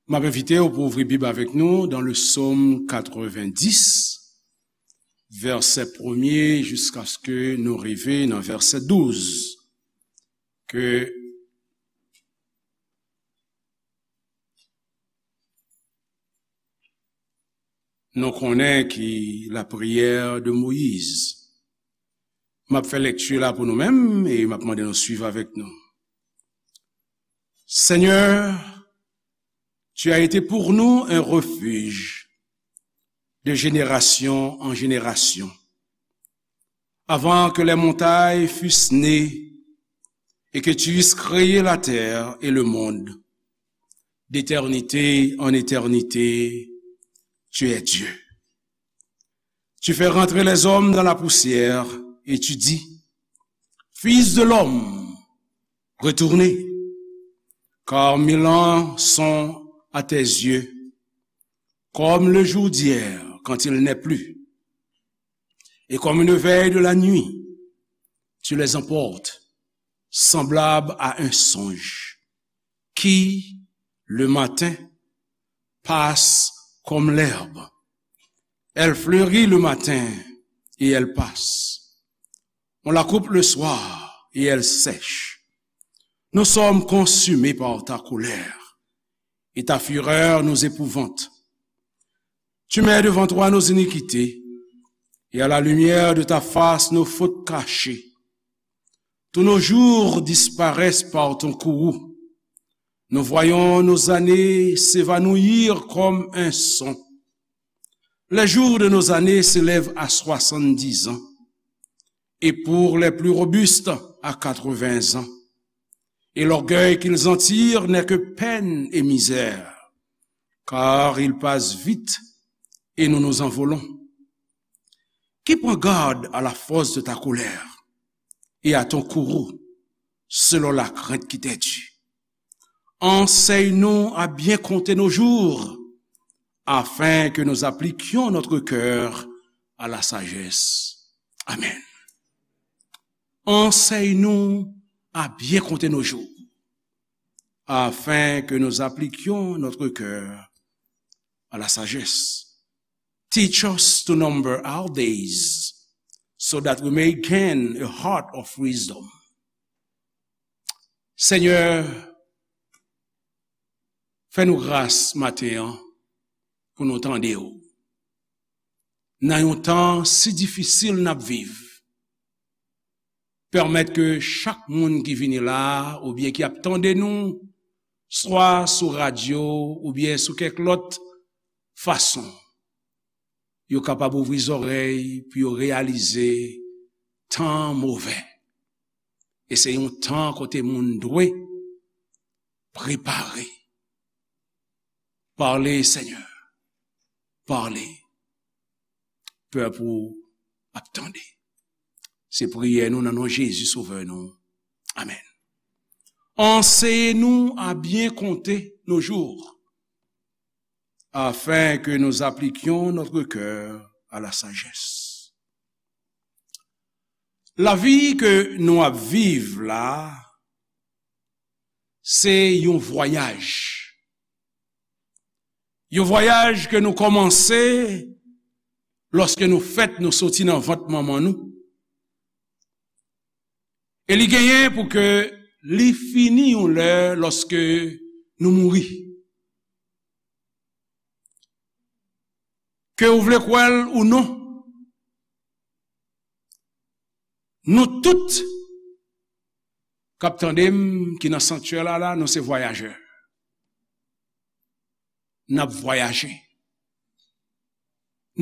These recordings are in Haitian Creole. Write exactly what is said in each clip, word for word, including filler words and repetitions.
M ap envite w pou ouvri Bib avèk nou dans le Psaume quatre-vingt-dix, vèsè premye jiskaske nou rive nan vèsè douz. Ke nou konnen ki lapriyè de Moyiz. M ap fè lekti la pou nou menm e m ap mande nou swiv avèk nou. Seigneur, tu as été pour nous un refuge de génération en génération. Avant que les montagnes fussent nées et que tu eusses créé la terre et le monde, d'éternité en éternité, tu es Dieu. Tu fais rentrer les hommes dans la poussière et tu dis, Fils de l'homme, retournez, car mille ans sont à tes yeux, comme le jour d'hier quand il n'est plus, et comme une veille de la nuit, tu les emportes, semblable à un songe, qui, le matin, passe comme l'herbe. Elle fleurit le matin et elle passe. On la coupe le soir et elle sèche. Nous sommes consumés par ta colère, et ta fureur nous épouvante. Tu mets devant toi nos iniquités, et à la lumière de ta face nos fautes cachées. Tous nos jours disparaissent par ton courroux. Nous voyons nos années s'évanouir comme un son. Les jours de nos années s'élèvent à soixante-dix ans, et pour les plus robustes à quatre-vingts ans. Et l'orgueil qu'ils en tirent n'est que peine et misère, car ils passent vite et nous nous envolons. Qui prend garde à la force de ta colère et à ton courroux, selon la crainte qui t'est due. Enseigne-nous à bien compter nos jours, afin que nous appliquions notre cœur à la sagesse. Amen. Enseigne-nous à bien compter nos jours, afin que nous appliquions notre cœur à la sagesse. Teach us to number our days, so that we may gain a heart of wisdom. Senyè, fè nou gras maten an pou nou tande w. Nan yon tan si difisil n ap viv, pèmèt ke chak moun ki vini la a oubyen ki ap tande nou, swa sou radyo oubyen sou kèk lòt fason, yo kapab ouvri zòrèy pou yo reyalize tan an move. E se yon tan kote moun dwe prepare. Pale, Senyè. Pale. Pèp ou ap tande. Se priyè nou nan non Jezi, Sovè nou. Amèn. Enseignez-nous à bien compter nos jours, afin que nous appliquions notre cœur à la sagesse. Lavi ke nou ap viv la, se yon vwayaj. Yon vwayaj ke nou kòmanse lòske nou fèt, nou soti nan vant manman nou. E li genyen pou ke li fini yon lè lòske nou mouri. Ke ou vle kwè l ou non, nou tout k ap tande m, ki nan sanktyè la, la, nou se vwayajè. N ap vwayaje.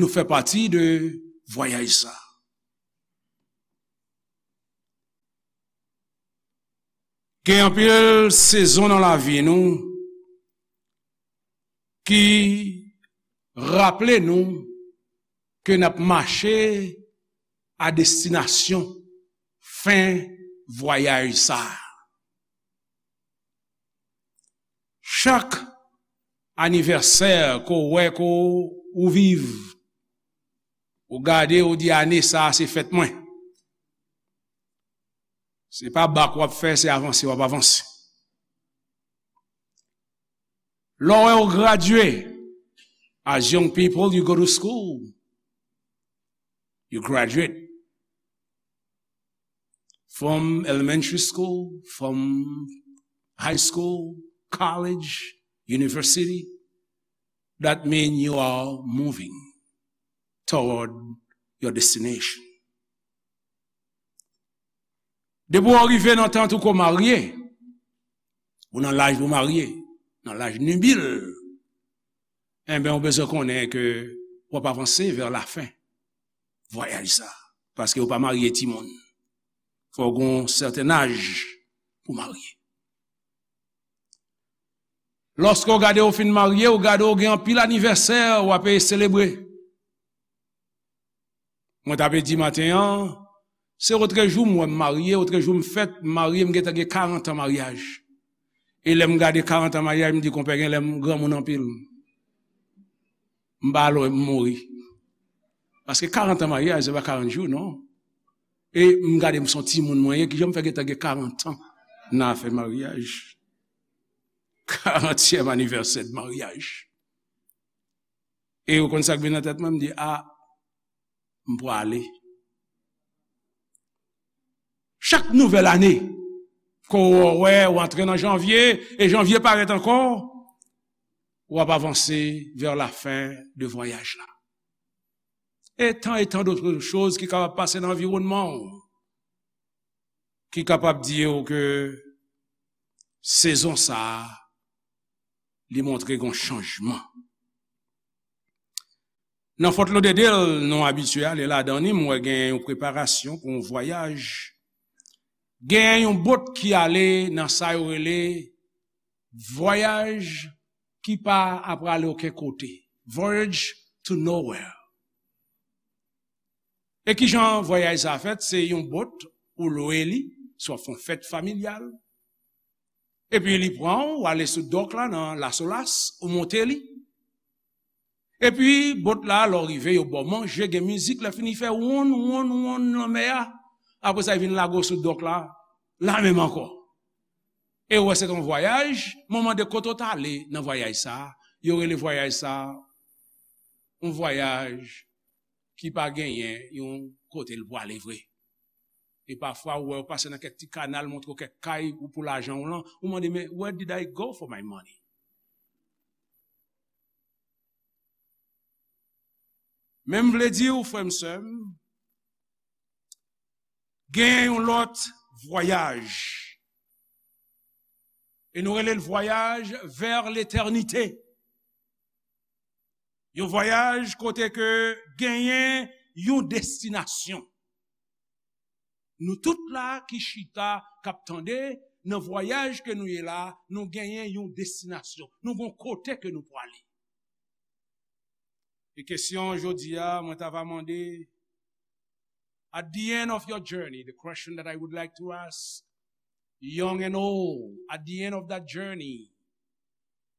Nou fè pati de vwayaj sa. Gen anpil sezon nan lavi nou ki raple nou ke n ap mache a destinasyon fen vwayaj sa a. Chak anivèsè ke w wè ke w viv, ou gade, ou di, ane sa a, se fèt mwen. Se pa bak w ap fè, se avanse w ap avanse. Lè w gradye, as young people, you go to school. You graduate from elementary school, from high school, college, university. That means you are moving toward your destination. Depi w rive nan tan ou ko marye, ou nan laj pou marye, nan laj nibil, enben, ou bezwen konnen ke w ap avanse vè lafen vwayaj sa. Paske ou pa marye timoun. Fò w gen yon sèten aj pou marye. Lòske w gade w fin marye, w gade w gen anpil anivèsè w ap selebre. Mwen t ap di maten an, se otrejou m wè m marye, otrejou m fèt, m marye, m gentan gen karant an maryaj. E lè m gade karant an maryaj, m di, "Konpè, gen lè m granmoun anpil." M pa lwen m mouri. Paske karant an maryaj, se pa karant jou, non. E m gade m se yon timoun mwen ye, kijan m fè gentan gen karant an nan afè maryaj. Karantyèm anivèsè de maryaj. E ou konn sa k vin nan tèt mwen, m di, "A, m prale." Chak nouvèl ane, ke w wè, w antre nan janvye, e janvye parèt ankò, w ap avanse vè lafen de vwayaj la. E tan e tan dòt choz ki kapab pase nan anviwònman w, ki kapab di w ke sezon sa a, li montre gen yon chanjman. Nan Fort Lauderdale, nou abitye ale ladan li, m wè gen yon preparasyon pou yon vwayaj. Gen yon bot ki ale nan sa yo rele vwayaj ki pa prale okenn kote. Voyage to nowhere. E kijan vwayaj sa fèt? Se yon bot, ou lwe li, si w ap fè yon fèt familyal. Epi li pran w, ou ale sou dòk la nan Lasolas, ou monte li. Epi bot la, lè w rive, yo ba w manje, gen mizik, lè fini fè wonn, wonn, wonn lanmè a. Apre sa, yo vin lage w sou dòk la, la menm ankò. E ou wè se yon vwayaj, mwen mande kote w t ale nan vwayaj sa a, yo rele vwayaj sa a, yon vwayaj ki pa genyen yon kote l prale vre. E pafwa, ou wè, ou pase nan kèk ti kanal, montre w kèk kay, ou pou lajan w lan, ou mande, "Men, where did I go for my money?" Men m vle di w, frè m, sè m, gen yon lòt vwayaj. E nou rele l vwayaj vè letènite. Yon vwayaj kote ke genyen yon destinasyon. Nou tout la ki chita, k ap tande, nan vwayaj ke nou ye la, nou genyen yon destinasyon. Nou gen yon kote ke nou prale. E kesyon jodi a, mwen ta va mande, at the end of your journey, the question that I would like to ask, young and old, at the end of that journey,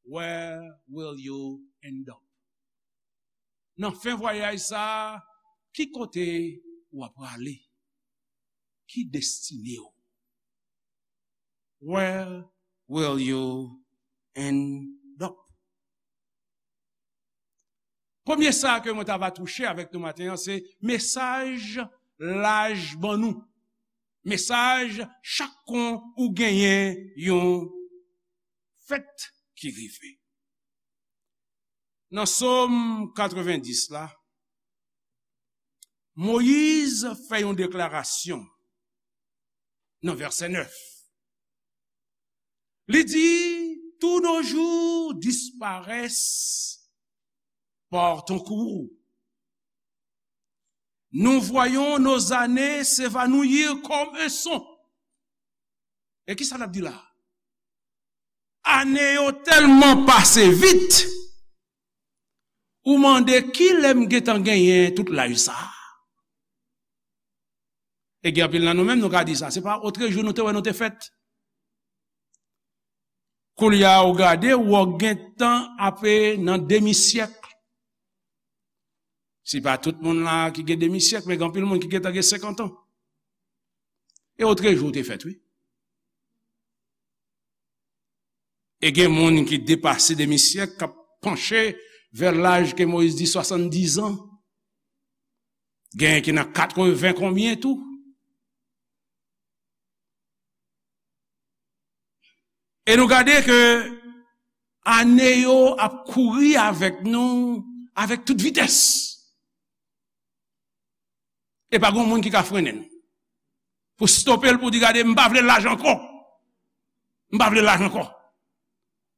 where will you end up? Nan fen vwayaj sa a, ki kote w ap prale? Ki destine w? Where will you end up? Premye sa ke mwen ta va touche avèk nou maten an, se mesaj laj ban nou. Mesaj chak kon ou genyen yon fèt ki rive. Nan Sòm katrevendis la, Moyiz fè yon deklarasyon nan vèsè nèf. Li di, tous nos jours disparaissent par ton courroux. Nous voyons nos années s'évanouir comme un son. E ki sa l ap di la? Ane yo tèlman pase vit, ou mande, "Kilè m gentan genyen tout laj sa a?" E gen anpil nan nou menm, nou ka di sa. Se pa otrejou nou te wè nou te fèt. Koulye a, ou gade, ou gentan ape nan demi syèk. Se pa tout moun la ki gen demi syèk, men gen anpil moun ki gentan gen senkant an. E otrejou ou te fèt, wi. E gen moun ki depase demi syèk, k ap panche vè laj ke Moyiz di swasanndizan. Gen ki nan katreven konbyen tou. E nou gade ke ane yo ap kouri avèk nou avèk tout vitès. E pa gen moun ki ka frennen l. Pou stope l, pou di, "Gade, m pa vle laj ankò. M pa vle laj ankò."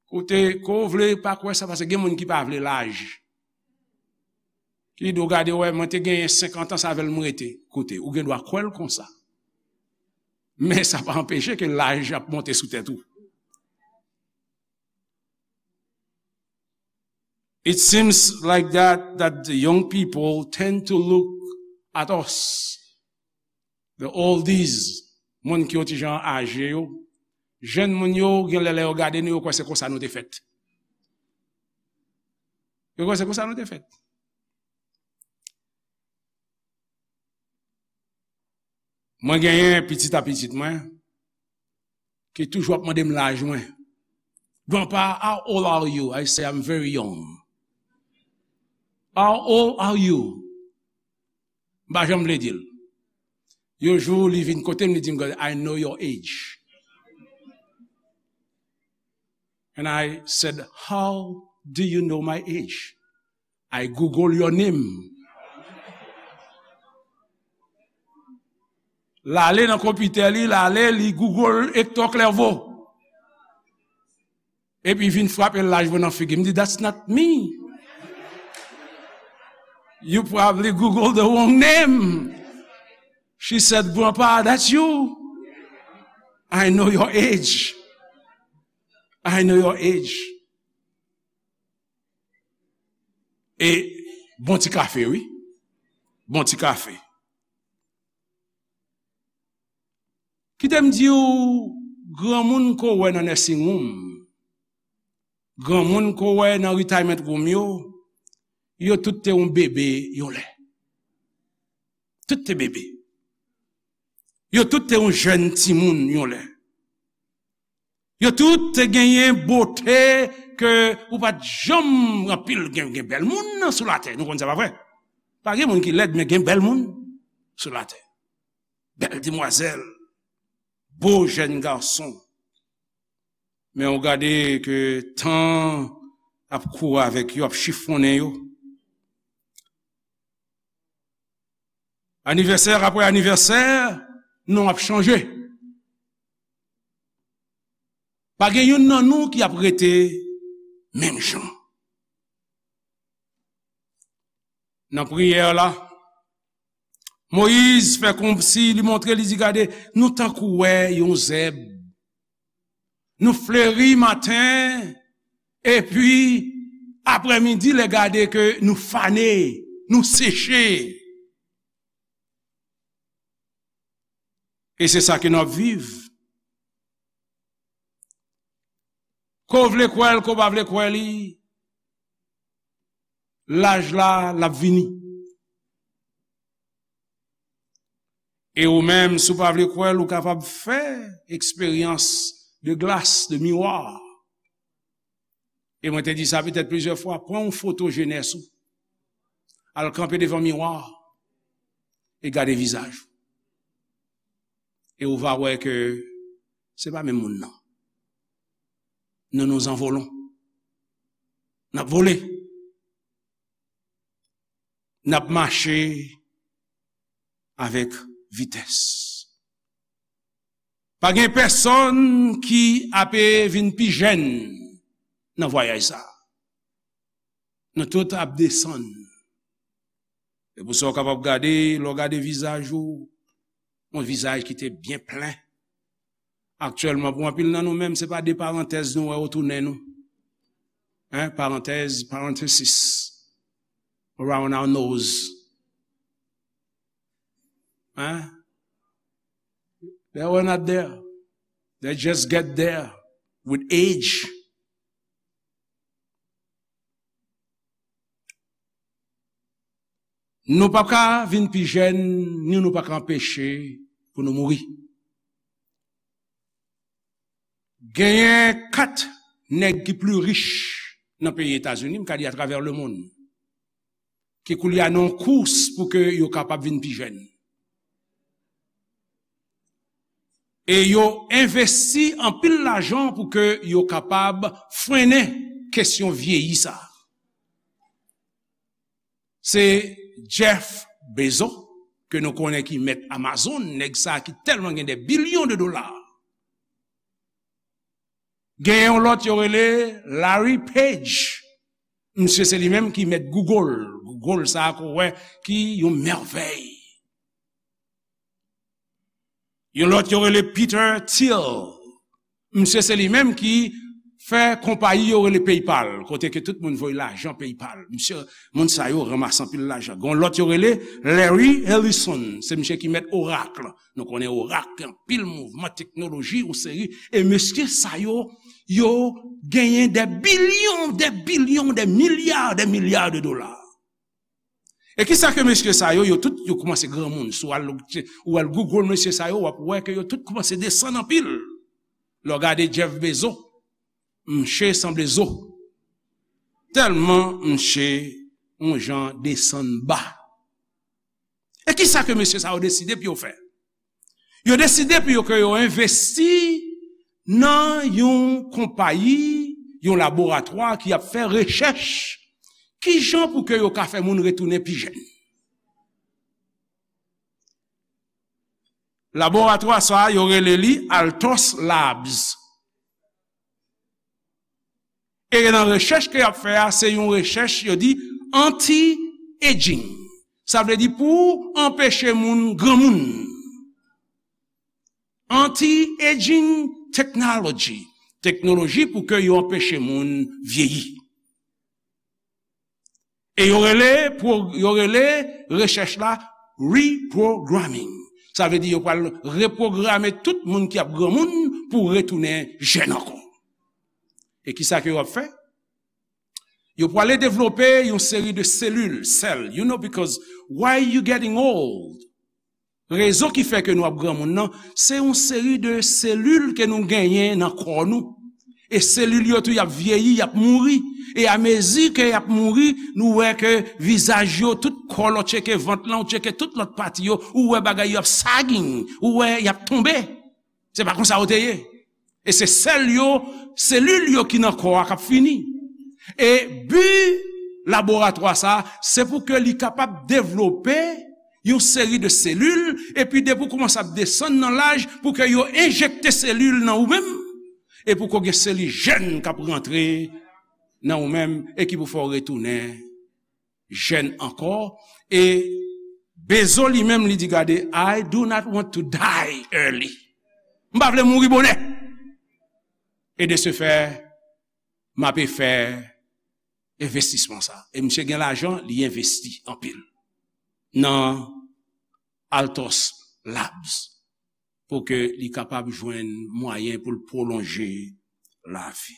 Koute, ke w vle pa kwè sa, paske gen moun ki pa vle laj. Ki di w, "Gade, wè, mwen te genyen senkant an, se avè l m rete." Koute, ou gen dwa kwè l konsa. Men sa pa anpeche ke laj ap monte sou tèt ou. It seems like that, that the young people tend to look at us, the oldies, moun ki yon ti jan aje yo. Jèn moun yo, gen lè, lè yo gade nou, yo kwè se konsa nou te fèt. Yo kwè se konsa nou te fèt. Mwen genyen pitit a pitit mwen ki toujou ap mande m laj mwen. "Grandpa, how old are you?" I say, "I'm very young." "How old are you?" M pa janm vle di l. Yon jou, li vin kote m, li di m, "I know your age." And I said, "How do you know my age?" "I Google your name." L ale nan konpitè li, l ale, li Google Hector Clerveau. Epi vin frape laj mwen nan figi. M di, "That's not me. You probably Google the wrong name." She said, "Grandpa, that's you. I know your age. I know your age." E bon ti kafe, wi. Bon ti kafe. Kite m di w, granmoun ke w wè nan nursing home, granmoun ke w wè nan retirement home yo, yo tout te yon bebe yon lè. Tout te bebe. Yo tout te yon jèn timoun yon lè. Yo tout te genyen bote ke ou pa t janm anpil gen, gen bèl moun sou latè. Nou konn sa, pa vre? Pa gen moun ki lèd, men gen bèl moun sou latè. Bèl demwazèl, bo jèn gason. Men ou gade ke tan ap kouri avèk yo, ap chifonnen yo. Anivèsè apre anivèsè, non ap chanje. Pa gen youn nan nou ki ap rete menm jan. Nan priyè la, Moyiz fè kòmsi li montre, li di, "Gade, nou tankou wè yon zèb. Nou fleri maten, epi aprèmidi, lè gade ke nou fane, nou seche." E se sa ke n ap viv. Ke w vle kwè l, ke w pa vle kwè li, laj la, l ap vini. E ou menm, si w pa vle kwè l, ou kapab fè eksperyans de glas, de miwa. E mwen te di sa petèt plizyè fwa, pran yon foto jenès ou. Al kanpe devan miwa e gade vizaj ou. E ou va wè ke se pa menm moun nan. Nou, nous envolons. N ap vole. N ap mache avèk vitès. Pa gen pèsonn ki ape vin pi jèn nan vwayaj sa a. Nou tout ap desann. E pou sa w kapab gade, lè w gade vizaj ou, yon vizaj ki te byen plen. Aktyèlman, pou anpil nan nou menm, se pa de parantèz nou wè otounen nou. Hein, parantèz, parenthesis, around our nose. Hein? They were not there. They just get there with age. Nou pa ka vin pi jèn, ni nou pa ka anpeche pou nou mouri. Genyen kat nèg ki pli rich nan peyi Etazini, m ka di atravè lemonn, ki koulye a nan yon kous pou ke yo kapab vin pi jèn. E yo envesti anpil lajan pou ke yo kapab frennen kesyon vyeyi sa. Se Jeff Bezos, ke nou konnen ki mèt Amazon, nèg sa ki tèlman gen de bilyon de dola. Gen yon lòt yo rele Larry Page. Misye se li menm ki mèt Google. Google sa a ke w wè ki yon mèvèy. Yon lòt yo rele Peter Thiel. Misye se li menm ki fè konpayi yo rele PayPal, kote ke tout moun voye lajan PayPal. Misye, moun sa yo ranmase anpil lajan. Gon lòt yo rele Larry Ellison, se misye ki mèt Oracle. Nou konnen Oracle gen anpil mouvman teknoloji, yon seri. E mesye sa yo, yo genyen de bilyon, de bilyon, de milya, de milya de dola. E kisa ke mesye sa yo, yo tout, yo kòmanse granmoun. Si w al, ou al Google mesye sa yo, w ap wè ke yo tout kòmanse desann anpil. Lè w gade Jeff Bezos, mche sanble zo. Tèlman mche yon jan desann ba. E kisa ke mesye sa yo deside pou yo fè? Yo deside pou yo ke yo envesti nan yon konpayi, yon laboratwa ki ap fè rechèch, kijan pou ke yo ka fè moun retounen pi jèn. Laboratwa sa a, yo rele li Altos Labs. E nan rechèch ke y ap fè a, se yon rechèch, yo di, anti-aging. Sa vle di pou anpeche moun granmoun. Anti-aging technology. Teknoloji pou ke yo anpeche moun vyeyi. E yo rele, pwo-, yo rele rechèch la reprogramming. Sa vle di yo pral repwograme tout moun ki ap granmoun pou retounen jèn ankò. E kisa ke yo ap fè? Yo prale devlope yon seri de selil, sèl, you know, because why you getting old? Rezon ki fè ke nou ap granmoun nan, se yon seri de selil ke nou genyen nan kò nou. E selil yo tou, y ap vyeyi, y ap mouri. E amezi ke y ap mouri, nou wè ke vizaj yo, tout kò lè w tcheke vant lan, ou tcheke tout lòt pati yo, ou wè bagay yo ap sagging, ou wè y ap tonbe. Se pa konsa yo te ye. E se sèl yo, selil yo ki nan kò a k ap fini. E bi laboratwa sa a, se pou ke li kapab devlope yon seri de selil, epi depi w kòmanse ap desann nan laj, pou ke yo enjekte selil nan ou menm, e pou ke w gen selil jèn k ap rantre nan ou menm, e ki pou fè w retounen jèn ankò. E Bezos li menm, li di, "Gade, I do not want to die early." M pa vle mouri bonè. E de ce fait, m ape fè envestisman sa. E misye gen lajan, li envesti anpil nan Altos Labs pou ke li kapab jwenn mwayen pou l pwolonje lavi.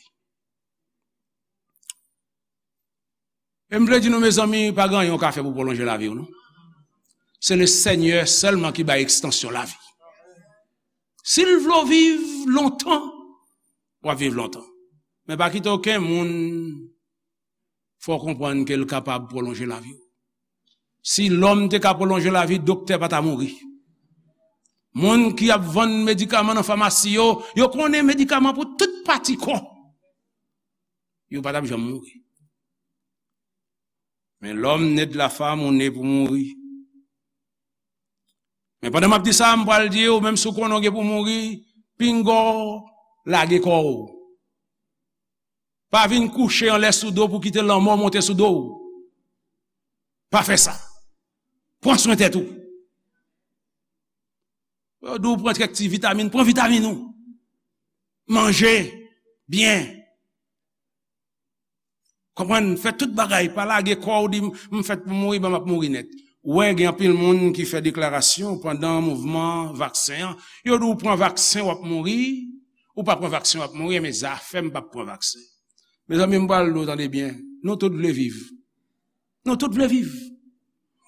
E m vle di nou, mezanmi, pa gen anyen w ka fè pou pwolonje lavi w, non. Se le Senyè sèlman ki bay ekstansyon lavi. Si l vle w viv lontan, w ap viv lontan. Men pa kite okenn moun fè w konprann ke l kapab pwolonje lavi w. Si lòm te ka pwolonje lavi, doktè pa ta mouri. Moun ki ap vann medikaman nan famasi yo, yo konnen medikaman pou tout pati kò. Yo pa t ap janm mouri. Men lòm ne de la fam, ou ne pou mouri. Men pandan m ap di sa, m pral di w, menm si w konnen w gen pou mouri, pinga w lage kò w. Pa vin kouche anlè sou do w pou kite lanmò monte sou do w. Pa fè sa. Pran swen tèt ou. Yo di w pran kèk ti vitamin, pran vitamin ou. Manje byen. Konprann, fè tout bagay, pa lage kò w, di, "M fèt pou mouri, ban m ap mouri nèt." Ou wè, gen anpil moun ki fè deklarasyon pandan mouvman vaksen an. Yo di w pran vaksen, w ap mouri, ou pa pran vaksen, w ap mouri, men zafè m p ap pran vaksen. Mezanmi, m pral di w, tande byen, nou tout vle viv. Nou tout vle viv.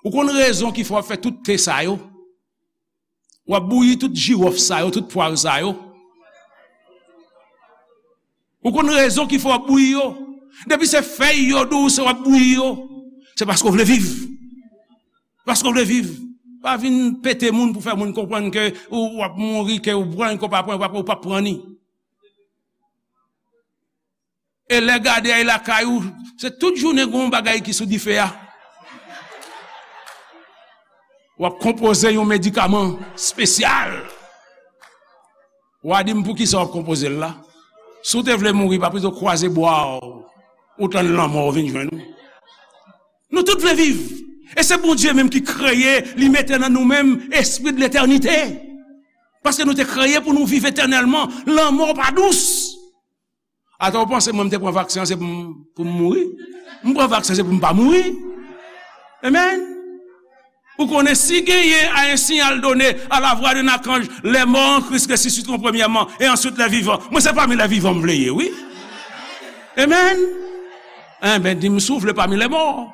Ou konn rezon ki fè w ap fè tout te sa yo? W ap bouyi tout jiwòf sa yo, tout pwav sa yo. Ou konn rezon ki fè w ap bouyi yo? Depi se fèy yo di w se w ap bouyi yo, se paske w vle viv. Paske w vle viv. Pa vin pete moun pou fè moun konprann ke ou, w ap mouri, ke ou pran, ke w pa pran, ou p ap, ou p ap pran ni. E lè gade ay lakay ou, se tout jounen gen yon bagay ki sou dife a. W ap konpoze yon medikaman espesyal. W a di m poukisa w ap konpoze l la. Si w te vle mouri, pa pito kwaze bwa w, ou tann lanmò vin jwenn ou. Nou tout vle viv. E se Bondye menm ki kreye, li mete nan nou menm espri de letènite. Paske nou te kreye pou nou viv etènèlman. Lanmò pa dous. Atò, w panse mwen m te pran vaksen an se pou m, pou m mouri? M pran vaksen se pou m pa mouri. Amen. Ou konnen si genyen a un signal donné à la voix d'un archange, les morts en Christ ressusciteront premièrement et ensuite les vivants. Mwen se pami les vivants m vle ye, wi. Amen. Enben, di m si w vle pami les morts.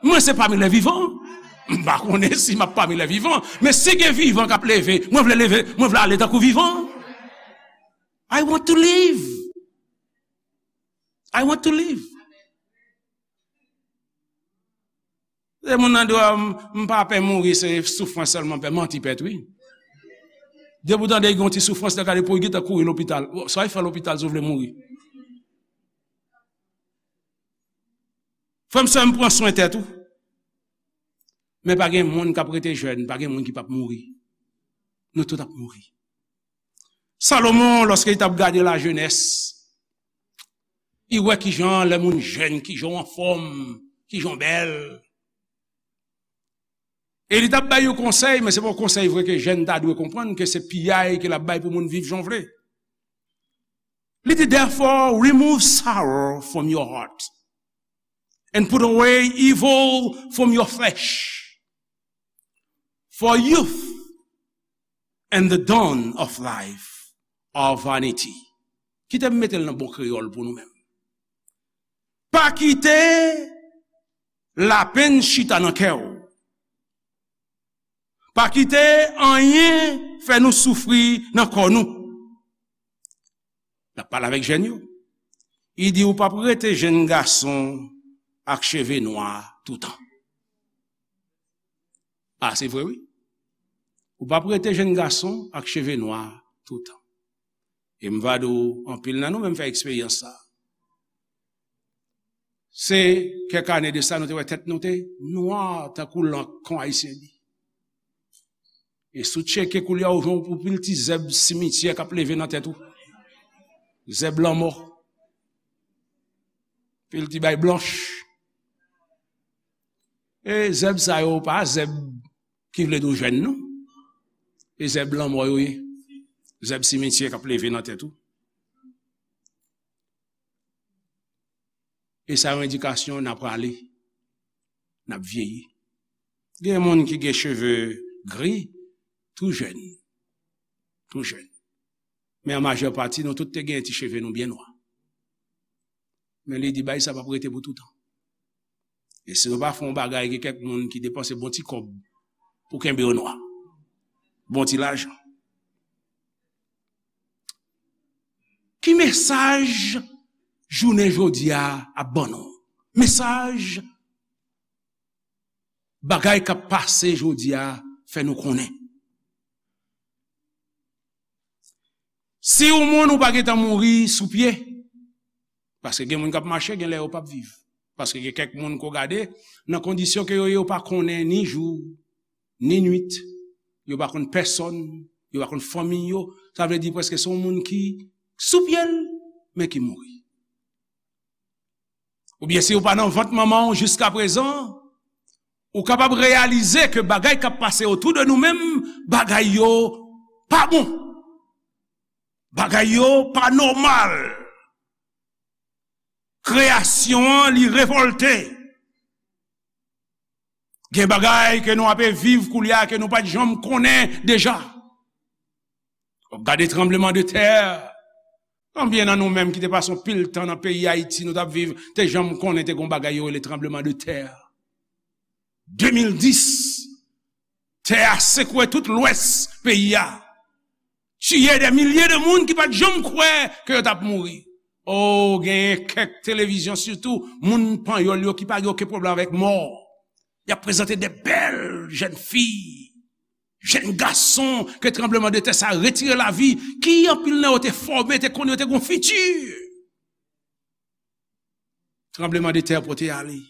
Mwen se pami les vivants. M pa konnen si m ap pami les vivants, men si gen vivan k ap leve, mwen vle leve, mwen vle ale tankou vivan. I want to live. I want to live. Se moun nan di w, "M, m pa pè mouri, se soufrans sèlman m pè." Manti pèt, wi. Depi w tande gen yon ti soufrans, lè gade pou w gentan kouri lopital. Sa w fè lopital si w vle mouri? Frè m, sè m, pran swen tèt ou. Men pa gen moun k ap rete jèn, pa gen moun ki p ap mouri. Nou tout ap mouri. Salomon, lòske li t ap gade lajenès, li wè kijan lè moun jèn, kijan w anfòm, kijan w bèl. E li t ap bay yon konsèy, men se pa yon konsèy vre ke jèn ta dwe konprann, ke se piyay ke l ap bay pou moun viv jan w vle. Li di, "Therefore, remove sorrow from your heart, and put away evil from your flesh. For youth and the dawn of life are vanity." Kite m mete l nan bon kreyòl pou nou menm. Pa kite lapenn chita nan kè w. Pa kite anyen fè nou soufri nan kò nou. L ap pale avèk jèn yo. Li di, "Ou p ap rete jenn gason ak cheve nwa toutan." A, se vre, wi. Ou p ap rete jenn gason ak cheve nwa toutan. E m va di w, anpil nan nou menm fè eksperyans sa. Se kèk ane de sa, nou te wè tèt nou te nwa tankou lank kon Ayisyen di. E si w tcheke koulye a, ou jwenn yon pil ti zèb simityè k ap leve nan tèt ou. Zèb lanmò. Pil ti bay blanch. E zèb sa yo pa zèb ki vle di w jèn, non. E zèb lanmò yo ye. Zèb simityè k ap leve nan tèt ou. E sa yon endikasyon n ap prale, n ap vyeyi. Gen moun ki gen cheve gri, tou jèn. Tou jèn. Men an majè pati, nou tout te gen ti cheve nou byen nwa. Men li di, "Bagay sa p ap rete pou toutan." E si nou pa fè yon bagay, gen kèk moun ki depanse bon ti kòb pou kenbe yo nwa. Bon ti lajan. Ki mesaj jounen jodi a ap ban nou? Mesaj bagay k ap pase jodi a fè nou konnen. Si yon moun ou pa gentan mouri sou pye, paske gen moun k ap mache, gen lè yo p ap viv. Paske gen kèk moun ke w gade, nan kondisyon ke yo ye, yo pa konnen ni jou, ni nwit, yo pa konn pèsòn, yo pa konn fanmi yo. Sa vle di prèske se yon moun ki sou pye l, men ki mouri. Oubyen si w pa nan vant manman w jiska prezan, ou kapab reyalize ke bagay k ap pase otou de nou menm, bagay yo pa bon. Bagay yo pa nòmal. Kreyasyon an, li revòlte. Gen bagay ke nou ape viv koulye a ke nou pa t janm konnen deja. W ap gade tranbleman de tè. Konbyen nan nou menm ki te pase yon pil tan nan peyi Ayiti nou t ap viv, te janm konnen te gen yon bagay yo rele tranbleman de tè? De mil dis, tè a sekwe tout lwès peyi a. Tiye dè milye de moun ki pa t janm kwè ke yo t ap mouri. O, genyen kèk televizyon sitou, moun panyòl yo ki pa gen okenn pwoblèm avèk mò. Y ap prezante de bèl jèn fi, jèn gason ke tranblemanntè sa retire lavi, ki anpil nan yo te fòme, te konnen yo te gon fiti. Tranblemanntè pote ale.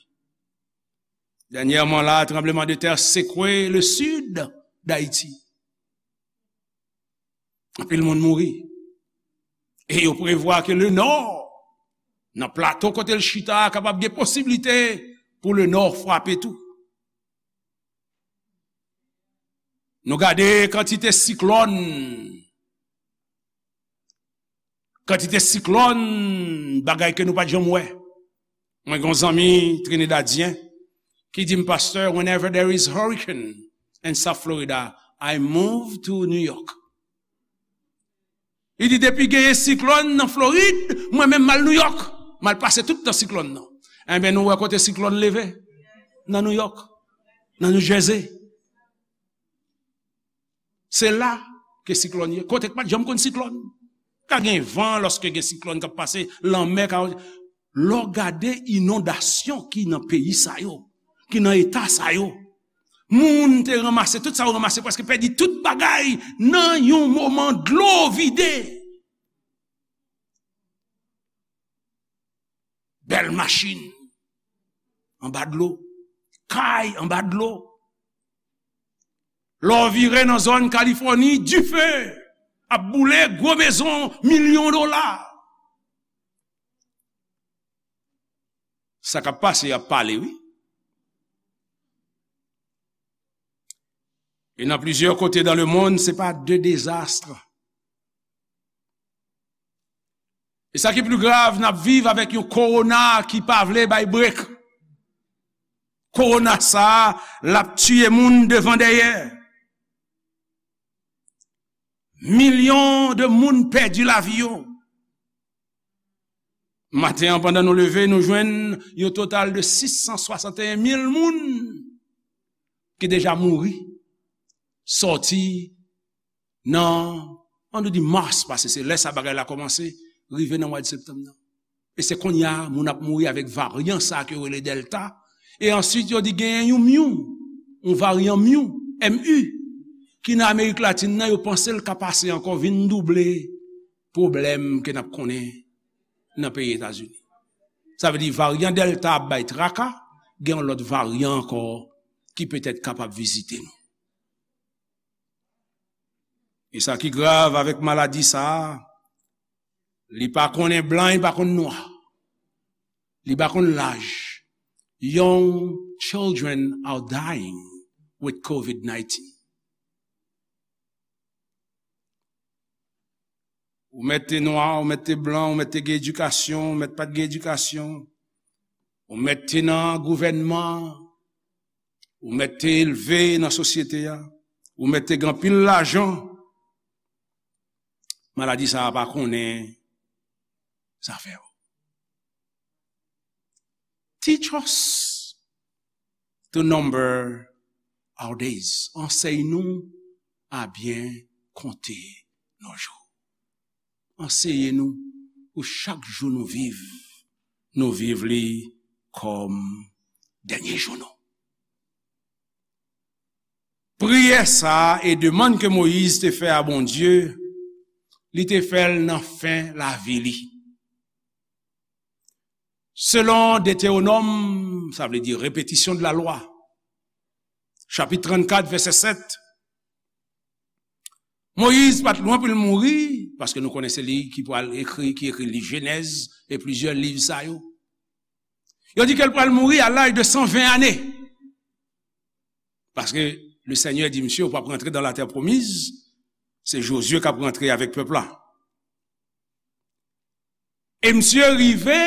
Dènyèman la, tranblemanntè sekwe le sid d'Ayiti. Anpil moun mouri. E yo prevwa ke le nò, nan plato kote l chita a, kapab gen posiblite pou le nò frape tou. Nou gade kantite siklòn, kantite siklòn, bagay ke nou pa t janm wè. Mwen gen yon zanmi Trinidadyen ki di m, "Pastor, whenever there is hurricane in South Florida, I move to New York." Li di, "Depi genyen siklòn nan Florid, mwen menm m al New York. M al pase tout tan siklòn nan." Enben, nou wè kote siklòn leve? Nan New York, nan New Jersey. Se la ke siklòn ye. Kote k pa t janm konn siklòn. Ka gen van lòske gen siklòn k ap pase, lanmè ka. Lè w gade inondasyon ki nan peyi sa yo, ki nan eta sa yo, moun te ranmase tout sa yo ranmase, prèske pèdi tout bagay nan yon moman dlo vide. Bèl machin anba dlo, kay anba dlo. Lè w vire nan zòn Kalifòni, dife ap boule, gwo mezon, milyon dola. Sa k ap pase, y ap pale, wi. E nan plizyè kote dans le monde, se pa de dezas. E sa ki pli grav, n ap viv avèk yon kowona ki pa vle bay brek. Kowona sa a, l ap tiye moun devan dèyè. Milyon de moun pèdi lavi yo. Maten an, pandan nou leve, nou jwenn yon total de sis san swasanteyen mil moun ki deja mouri, sòti nan, an nou di mas, paske se lè sa bagay la kòmanse, rive nan mwa de septanm nan. E se kounye a, moun ap mouri avèk varyan sa ke yo rele Delta. E answit, yo di genyen yon Mu, yon varyan Mu, M U, ki nan Amerik Latin nan, yo panse l ka pase ankò, vin double pwoblèm ke n ap konnen nan peyi Etazini. Sa vle di varyan Delta ap bay traka, gen yon lòt varyan ankò ki petèt kapab vizite nou. E sa ki grav avèk maladi sa a, li pa konnen blan, li pa konn nwa. Li pa konn laj. Young children are dying with covid nineteen. Ou mèt te nwa, ou mèt te blan, ou mèt te gen edikasyon, ou mèt pa t gen edikasyon, ou mèt te nan gouvènman, ou mèt te elve nan sosyete a, ou mèt te gen anpil lajan, maladi sa a pa konnen zafè w. Teach us to number our days. Ansèy nou a byen konte nos jours. Anseye nou pou chak jou nou viv, nou viv li kòm dènye jou nou. Priyè sa a e demann ke Moyiz te fè a Bondye, li te fè l nan fen lavi li. Selon Detewonòm, sa vle di répétition de la loi, chapit trannkat, vèsè sèt, Moyiz pa t lwen pou l mouri, paske nou konnen se li ki pral ekri, ki ekri liv Jenèz e plizyè liv sa yo. Yo di ke l pral mouri a laj de san ven ane. Paske le Senyè di misye, "Ou p ap rantre dans la terre promise." Se Jozye k ap rantre avèk pèp la. E misye rive,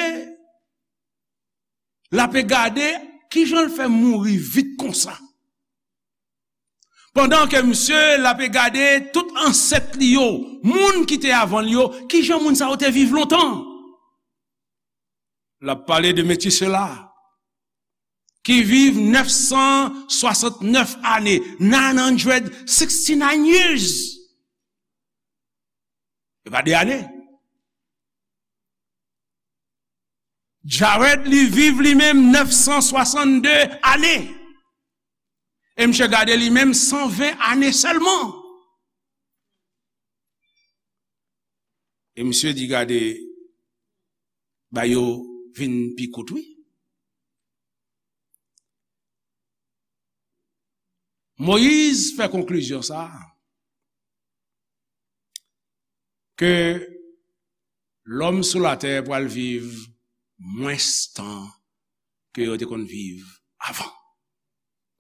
l ape gade kijan l fè mouri vit konsa. Pandan ke misye, l ape gade tout ansèt li yo, moun ki te avan l yo, kijan moun sa yo te viv lontan. L ap pale de Metisela, ki viv nèf san swasantnèf ane, nine hundred sixty-nine years. E pa de ane. Jared, li viv li menm nèf san swasann de ane. E misye gade li menm san ven ane sèlman. E misye di, "Gade, ba yo vin pi kout, wi." Moyiz fè konklizyon sa a, ke lòm sou latè pral viv mwens tan ke yo te konn viv avan.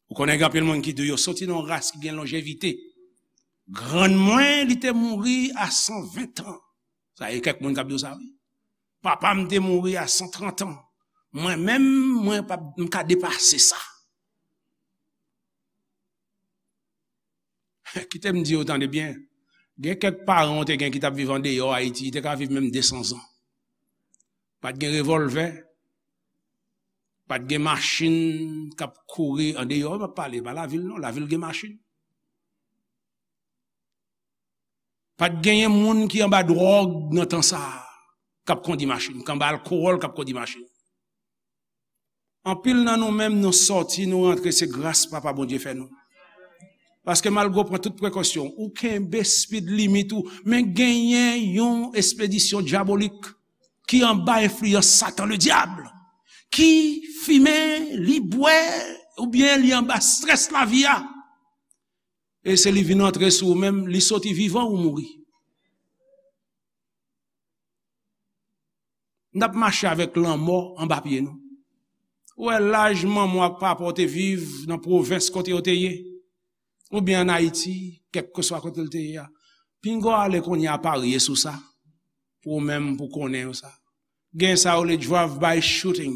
Ou konnen gen anpil moun ki di yo soti nan yon ras ki gen lonjevite. Grann mwen, li te mouri a san ven an. Sa e kèk moun k ap di w sa, wi. Papa m te mouri a san trant an. Mwen menm, mwen pa, m ka depase sa. Kite m di w, tande byen. Gen kèk paran w te gen ki t ap viv andeyò Ayiti, te ka viv menm de san zan. Pa t gen revòlvè, pa t gen machin k ap kouri andeyò, m ap pale, pa lavil non, lavil gen machin. Pa t genyen moun ki anba dwòg nan tan sa a, k ap kondi machin, k anba alkowòl, k ap kondi machin. Anpil nan nou menm, nou sòti, nou rantre, se gras Papa Bondye fè nou. Paske malgre w pran tout prekosyon, ou kenbe speed limit ou, men genyen yon espedisyon dyabolik ki anba enfliyans Satan, le diable, ki fimen, li bwè, oubyen li anba strès lavi a. E se li vin antre sou ou menm, li soti vivan ou mouri. N ap mache avèk lanmò anba pye nou. Ou wè laj manman w ak papa w te viv nan pwovens kote yo te ye, oubyen ann Ayiti, kèlkeswa kote l te ye a. Pinga w ale kounye a parye sou sa, pou ou menm, pou konnen yo sa. Gen sa yo rele drive-by shooting.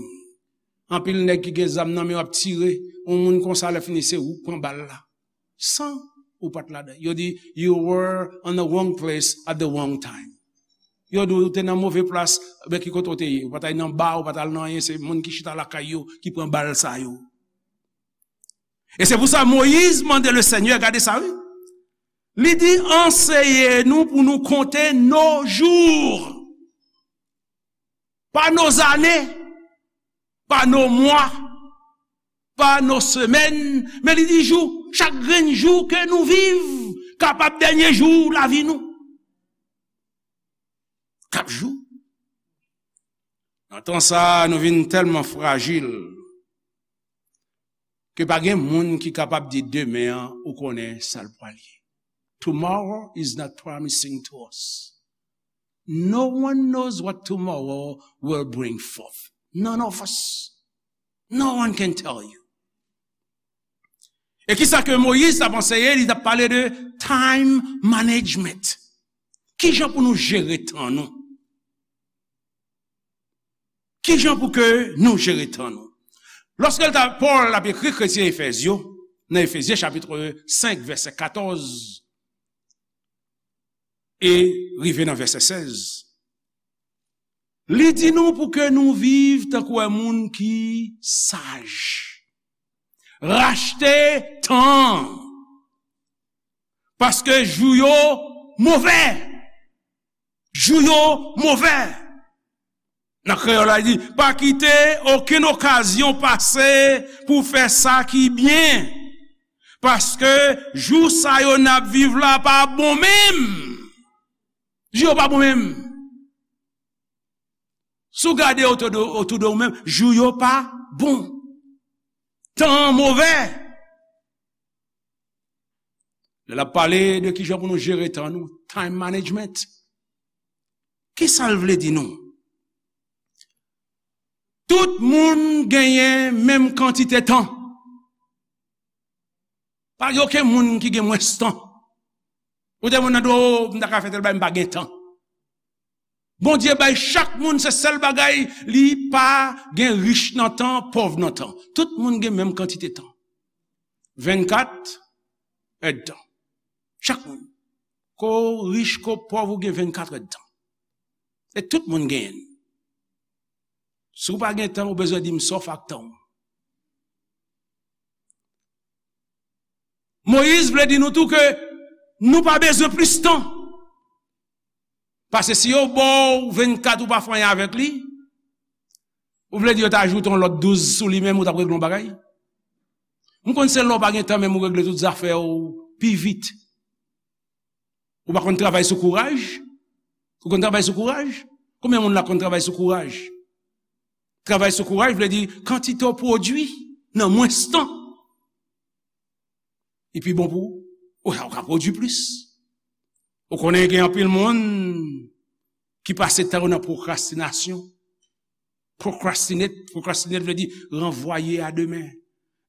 Anpil nèg ki gen zam nan men yo ap tire, yon moun konsa lè fini se ou k pran bal la. San ou pa t ladan. Yo di, "You were on the wrong place at the wrong time." Yo di, "Ou te nan move plas, men ki kote w te ye? Ou pa t al nan ba, ou pa t al nan anyen, se moun ki chita lakay yo ki pran bal sa yo." E se pou sa Moyiz mande le Senyè, gade sa, wi. Li di, "Anseye nou pou nou konte nos jours." Pa nos années, pa nos mois, pa nos semaines, men li di jou, chak grenn jou ke nou viv, kapab dènye jou lavi nou. K ap jou. Nan tan sa a, nou vin tèlman frajil ke pa gen moun ki kapab di demen an, ou konnen sa l pral ye. Tomorrow is not promising to us. No one knows what tomorrow will bring forth. None of us. No one can tell you. E kisa ke Moyiz t ap anseye? Li t ap pale de time management. Kijan pou nou jere tan nou? Kijan pou ke nou jere tan nou? Lòske l ta, Pòl ap ekri kretyen Efèz yo, nan Efezyen chapit senk, vèsè katòz, e rive nan vèsè sèz, li di nou pou ke nou viv tankou yon moun ki saj. Rachte tan. Paske jou yo move. Jou yo move. Nan kreyòl la, li di, "Pa kite okenn okazyon pase pou fè sa ki byen. Paske jou sa yo n ap viv la pa bon menm." Jou yo pa bon menm. Si w gade otou de, otou de ou menm, jou yo pa bon. Tan an move. Lè l ap pale de kijan pou nou jere tan nou, time management. Kisa l vle di nou? Tout moun genyen menm kantite tan. Pa gen okenn moun ki gen mwens tan. Ou te moun nan di, "O, m ta ka fè tèl bagay, m pa gen tan." Bondye bay chak moun se sèl bagay, li pa gen rich nan tan, pòv nan tan. Tout moun gen menm kantite tan. Vennkat èdtan. Chak moun. Ko rich, ko pòv, ou gen vennkat èdtan. E tout moun genyen l. Si w pa gen tan, ou bezwen di m sa w fè ak tan w. Moyiz vle di nou tou ke nou pa bezwen plis tan. Paske si yo ba w vennkat ou pa fè anyen avèk li, Ou vle di yo ta ajoute yon lòt douz sou li menm, ou t ap regle yon bagay? M konn se lè w pa gen tan menm ou regle tout zafè w pi vit. Ou pa konn travay sou kouraj? Ou konn travay sou kouraj? Konbyen moun la konn travay sou kouraj? Travay sou kouraj vle di kantite w pwodui nan mwens tan. Li pi bon pou ou. Ou, ou ka pwodui plis. Ou konnen gen anpil moun ki pase tan yo nan pwokrastinasyon. Procrastinate, procrastinate vle di ranvwaye a demen.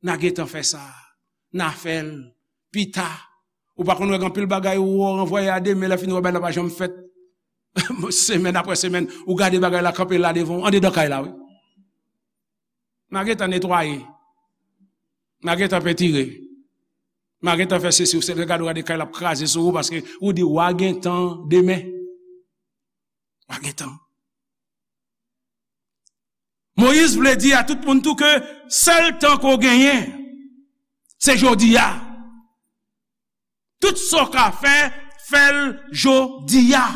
N a gentan fè sa. N a fè l pita. Ou pa konn wè gen anpil bagay ou ranvwaye a demen, lè fini ou wè bagay la pa janm fèt. Semèn apre semèn, ou gade bagay la kanpe la devan w, andedan kay la, wi. M a gentan netwaye. M a gentan pentire. M a gentan fè sesi, ou se gade, ou gade kay la ap kraze sou ou paske ou di w a gentan demen. W a gentan. Moyiz vle di a tout moun tou ke sèl tan ke w genyen, se jodi a. Tout sa w ka fè, fè l jodi a.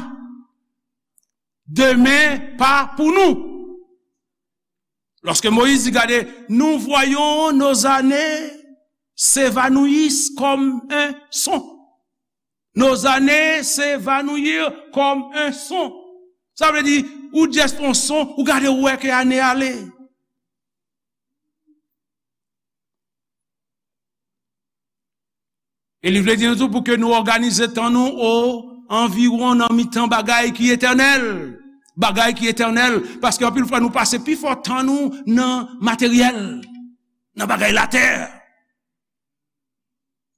Demen pa pou nou. Lorsque Moïse dit, gade, nous voyons nos années s'évanouissent comme un son. Nos années s'évanouir comme un son. Sa vle di, ou just yon son, ou gade, ou wè ke ane ale. E li vle di nou tou pou ke nou òganize tan nou o anviwon nan mitan bagay ki etènèl. Bagay ki etènèl. Paske anpil fwa nou pase pifò tan nou nan materyèl, nan bagay latè.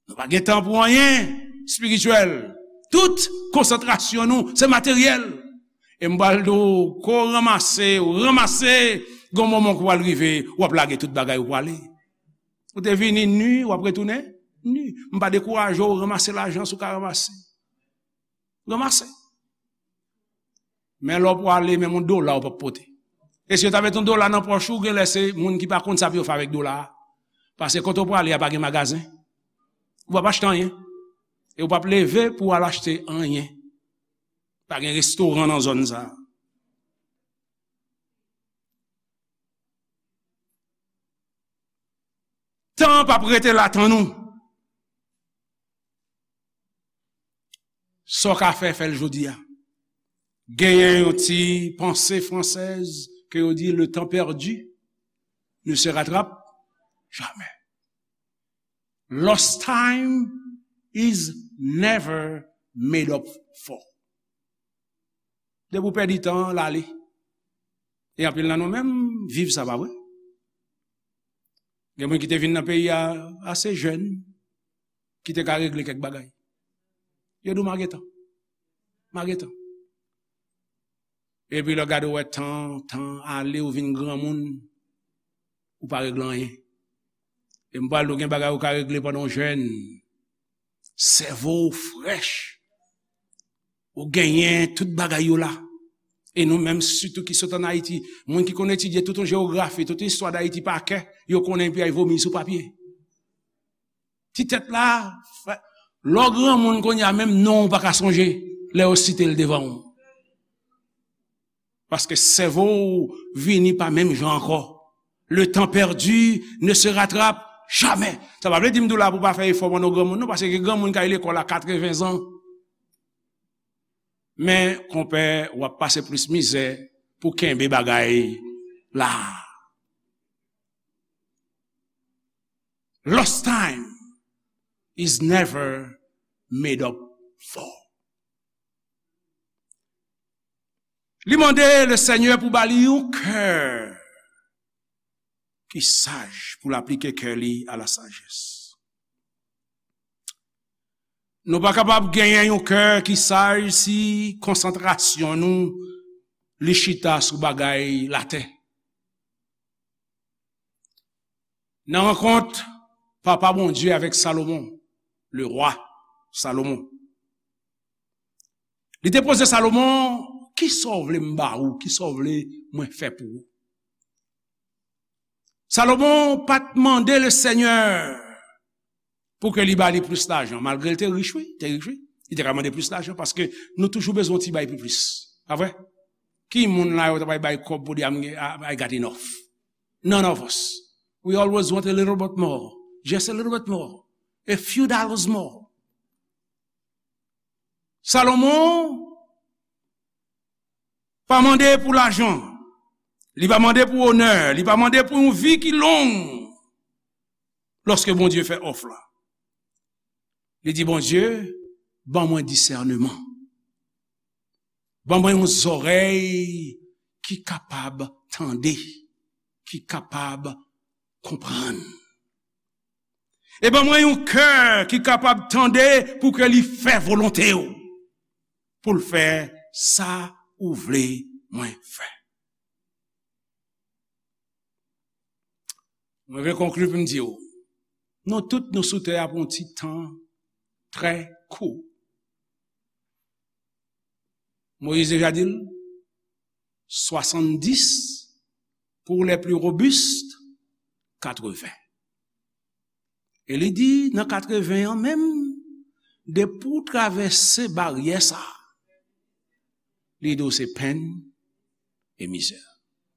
Nou pa gen tan pou anyen espirityèl. Tout konsantrasyon nou, se materyèl. E m pral di w, ke w ranmase, w ranmase, gen yon moman ke w pral rive, w ap lage tout bagay, ou prale. Ou te vini ni, w ap retounen ni. M pa dekouraje w, ranmase lajan si w ka ranmase. Ranmase. Men lè w prale, menm yon dola w p ap pote. E si yo ta met yon dola nan pòch ou, genlè se moun ki pa konn sa pou yo fè avèk dola a. Paske kote w prale a pa gen magazen. Ou p ap achte anyen. E w p ap leve pou w al achte anyen. Pa gen restoran nan zòn sa a. Tan p ap rete la, tann ou. Sa w ka fè, fè l jodi a. Genyen yon ti panse fransèz ke yo di, le temps perdu ne se rattrape jamais. Lost time is never made up for. Depi w pèdi tan an, l ale. E anpil nan nou menm viv sa, pa vre? Gen moun ki te vin nan peyi a ase jèn, ki te ka regle kèk bagay. Yo di w, "M a gen tan. M a gen tan." Epi lè w gade, w wè tan, tan ale, ou vin granmoun, ou pa regle anyen. E m pral di w, gen bagay ou ka regle pandan w jèn. Sèvo w frèch. Ou genyen tout bagay yo la. E nou menm, sitou ki sot ann Ayiti, moun ki konn etidye tout yon jewografi, tout yon istwa d Ayiti pa kè, yo konnen epi ay vomi sou papye. Ti tèt la, frè, lè w granmoun kounye a, menm non w pa ka sonje lè yo site l devan w. Paske sèvo w vini pa menm jan ankò. Le temps perdu ne se rattrape jamais. Sa pa vle di m di w la pou w pa fè efò pandan w granmoun, non, paske gen granmoun k al lekòl a katreven zan. Men, konpè, w ap pase plis mizè pou kenbe bagay la. Lost time is never made up for. Li mande Lesenyè pou ba li yon kè ki saj, pou l aplike kè li a la sajès. Nou pa kapab genyen yon kè ki saj si konsantrasyon nou li chita sou bagay latè. Nan rankont Papa Bondye avèk Salomon, le roi Salomon, li te poze Salomon, "Kisa w vle m ba ou? Kisa w vle mwen fè pou ou?" Salomon pa t mande Lesenyè pou ke li ba li plis lajan, malgre l te rich, wi, te rich, wi. Li te ka mande plis lajan, paske nou toujou bezwen yon ti bagay pi plis. Pa vre? Ki moun la yo ta bay, bay kòb pou di, "I'm, I, I got enough"? None of us. We always want a little bit more. Just a little bit more. A few dollars more. Salomon pa mande pou lajan. Li pa mande pou onè. Li pa mande pou yon vi ki long. Lòske Bondye fè òf la, li di, Bondye, ban mwen disèneman. Ban mwen yon zòrèy ki kapab tande, ki kapab konprann. E ban mwen yon kè ki kapab tande pou ke li fè volonte w, pou l fè sa ou vle mwen fè. Mwen vle konkli pou m di w, nou tout nou sou tè a pou yon ti tan trè kou. Moyiz deja di l, swasanndis pou les plus robustes, katreven. E li di, nan katreven an menm, depi w travèse baryè sa a, li di w se penn e mizè.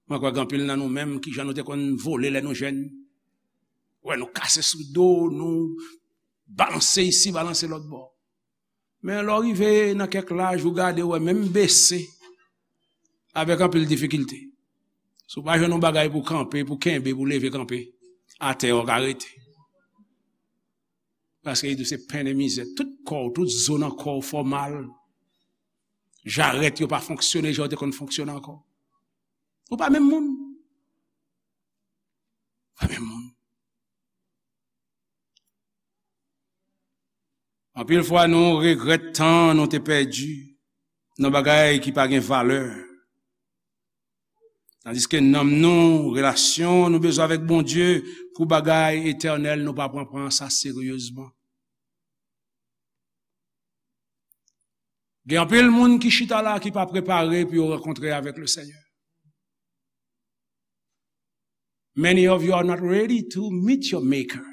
Mwen kwè gen anpil nan nou menm, kijan nou te konn vole lè nou jèn. Wè, nou kase sou do, nou balanse isi, balanse lòt bò. Men lè w rive nan kèk laj, ou gade, ou wè, menm bese, avèk anpil difikilte. Si w pa jwenn yon bagay pou kanpe, pou kenbe, pou leve kanpe, atè w ka rete. Paske li di w se penn e mizè. Tout kò w, tout zo nan kò w fè w mal. Jarèt yo pa fonksyone jan yo te konn fonksyone ankò. Ou pa menm moun. Ou pa menm moun. Anpil fwa, nou regrèt tan nou te pèdi nan bagay ki pa gen valè. Tandiske nanm nou, relasyon nou bezwen avèk Bondye pou bagay etènèl, nou pa pran, pran sa seryezman. Gen anpil moun ki chita la ki pa prepare pou yo rankontre avèk le Senyè. Many of you are not ready to meet your maker.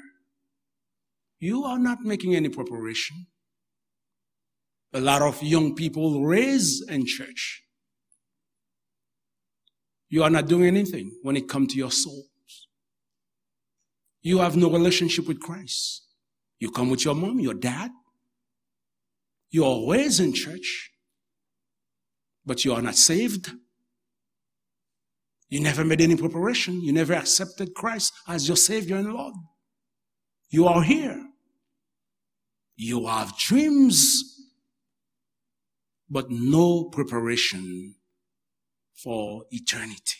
You are not making any preparation. A lot of young people raised in church. You are not doing anything when it comes to your souls. You have no relationship with Christ. You come with your mom, your dad. You are raised in church, but you are not saved. You never made any preparation. You never accepted Christ as your Savior and Lord. You are here. You have dreams, but no preparation for eternity.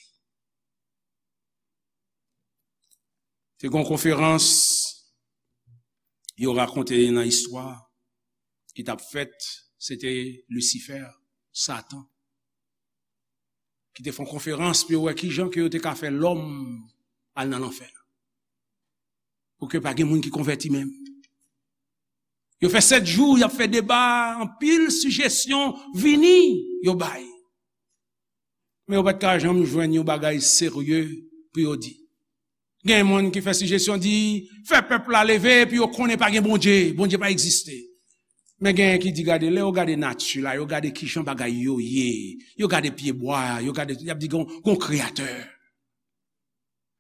Te gen yon konferans yo rakonte nan istwa ki t ap fèt, se te Lisifè, Satan, ki te fè yon konferans pou yo wè kijan ke yo te ka fè lòm al nan lanfè. Pou ke pa gen moun ki konvèti menm. Yo fè sèt jou, y ap fè deba, anpil sijesyon vini, yo bay. Men yo pa t ka janm jwenn yon bagay serye pou yo di. Gen moun ki fè sijesyon di, fè pèp la leve, epi yo konnen pa gen Bondye, Bondye pa egziste. Men gen ki di, gade, lè yo gade nati la, yo gade kijan bagay yo ye, yo gade pyebwa, yo gade, y ap di, gon, gon kreyatè.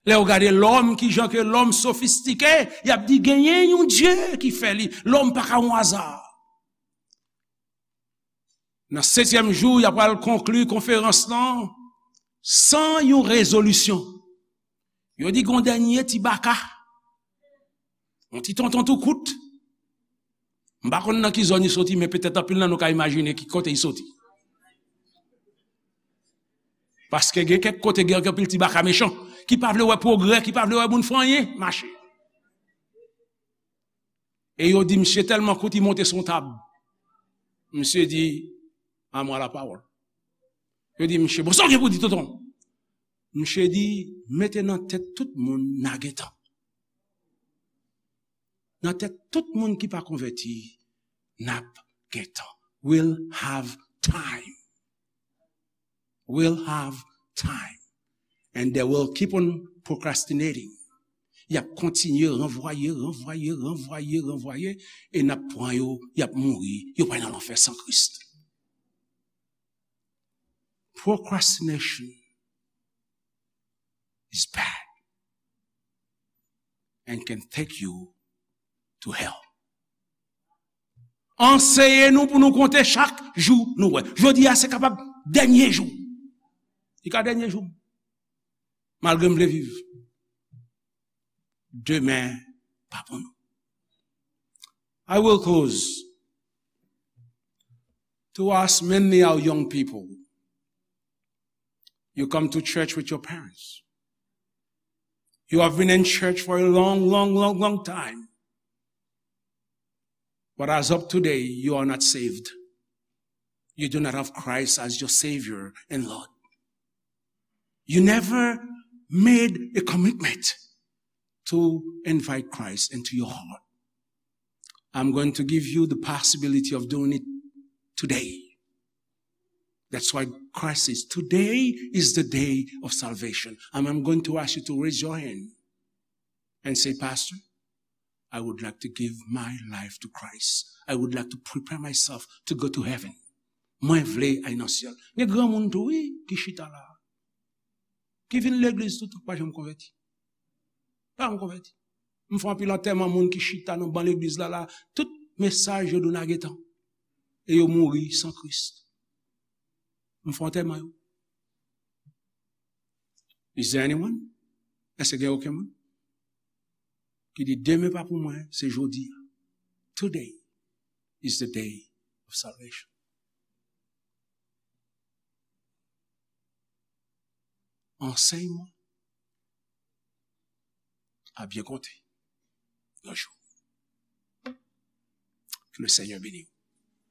Lè yo gade lòm, kijan ke lòm sofistike, y ap di, genyen yon Dye ki fè li, lòm pa ka yon aza. Nan setyèm jou, y ap pral konkli konferans lan san yon rezolisyon. Yo di gon dènye ti baka. Yon ti tonton tou kout. M pa konn nan ki zòn li soti, men petèt anpil nan nou ka imajine ki kote li soti. Paske gen kèk kote gen anpil ti baka mechan, ki pa vle wè pwogrè, ki pa vle wè moun fè anyen mache. E yo di misye tèlman kout, li monte sou yon tab. Misye di, "À moi la parole." Yo di misye, "Bon, sa w gen pou di, tonton?" Misye di, "Mete nan tèt tout moun n a gen tan. Nan tèt tout moun ki pa konvèti, n ap gen tan. We'll have time. We'll have time." And they will keep on procrastinating. Y ap kontinye ranvwaye, ranvwaye, ranvwaye, ranvwaye, e n ap pran yo, y ap mouri, yo pral nan lanfè san Kris. Procrastination is bad. and can take you to hell. Anseye nou pou nou konte chak jou nou wè. Jodi a se kapab dènye jou. Li ka dènye jou. Malgre m vle viv. Demen pa pou nou. I will close to ask mainly our young people. You come to church with your parents. You have been in church for a long, long, long, long time. But as of today, you are not saved. You do not have Christ as your Savior and Lord. You never made a commitment to invite Christ into your heart. I'm going to give you the possibility of doing it today. That's why Christ says, "Today is the day of salvation." And I'm going to ask you to raise your hand and say, "Pastor, I would like to give my life to Christ. I would like to prepare myself to go to heaven." Mwen vle al nan syèl. Gen granmoun tou, wi, ki chita la. Ki vin legliz tout, pa janm konvèti. Pa janm konvèti. M fè anpil antèman moun ki chita nan ban legliz la, la. Tout mesaj yo dou nan getan. E yo mouri san Kris. M fè antèman yo. Is there anyone? Èske gen okenn moun ki di, "Demen pa pou mwen, se jodi a"? Today is the day of salvation. Ansèyman a byen konte yon jou. Ke le Seigneur bénisse.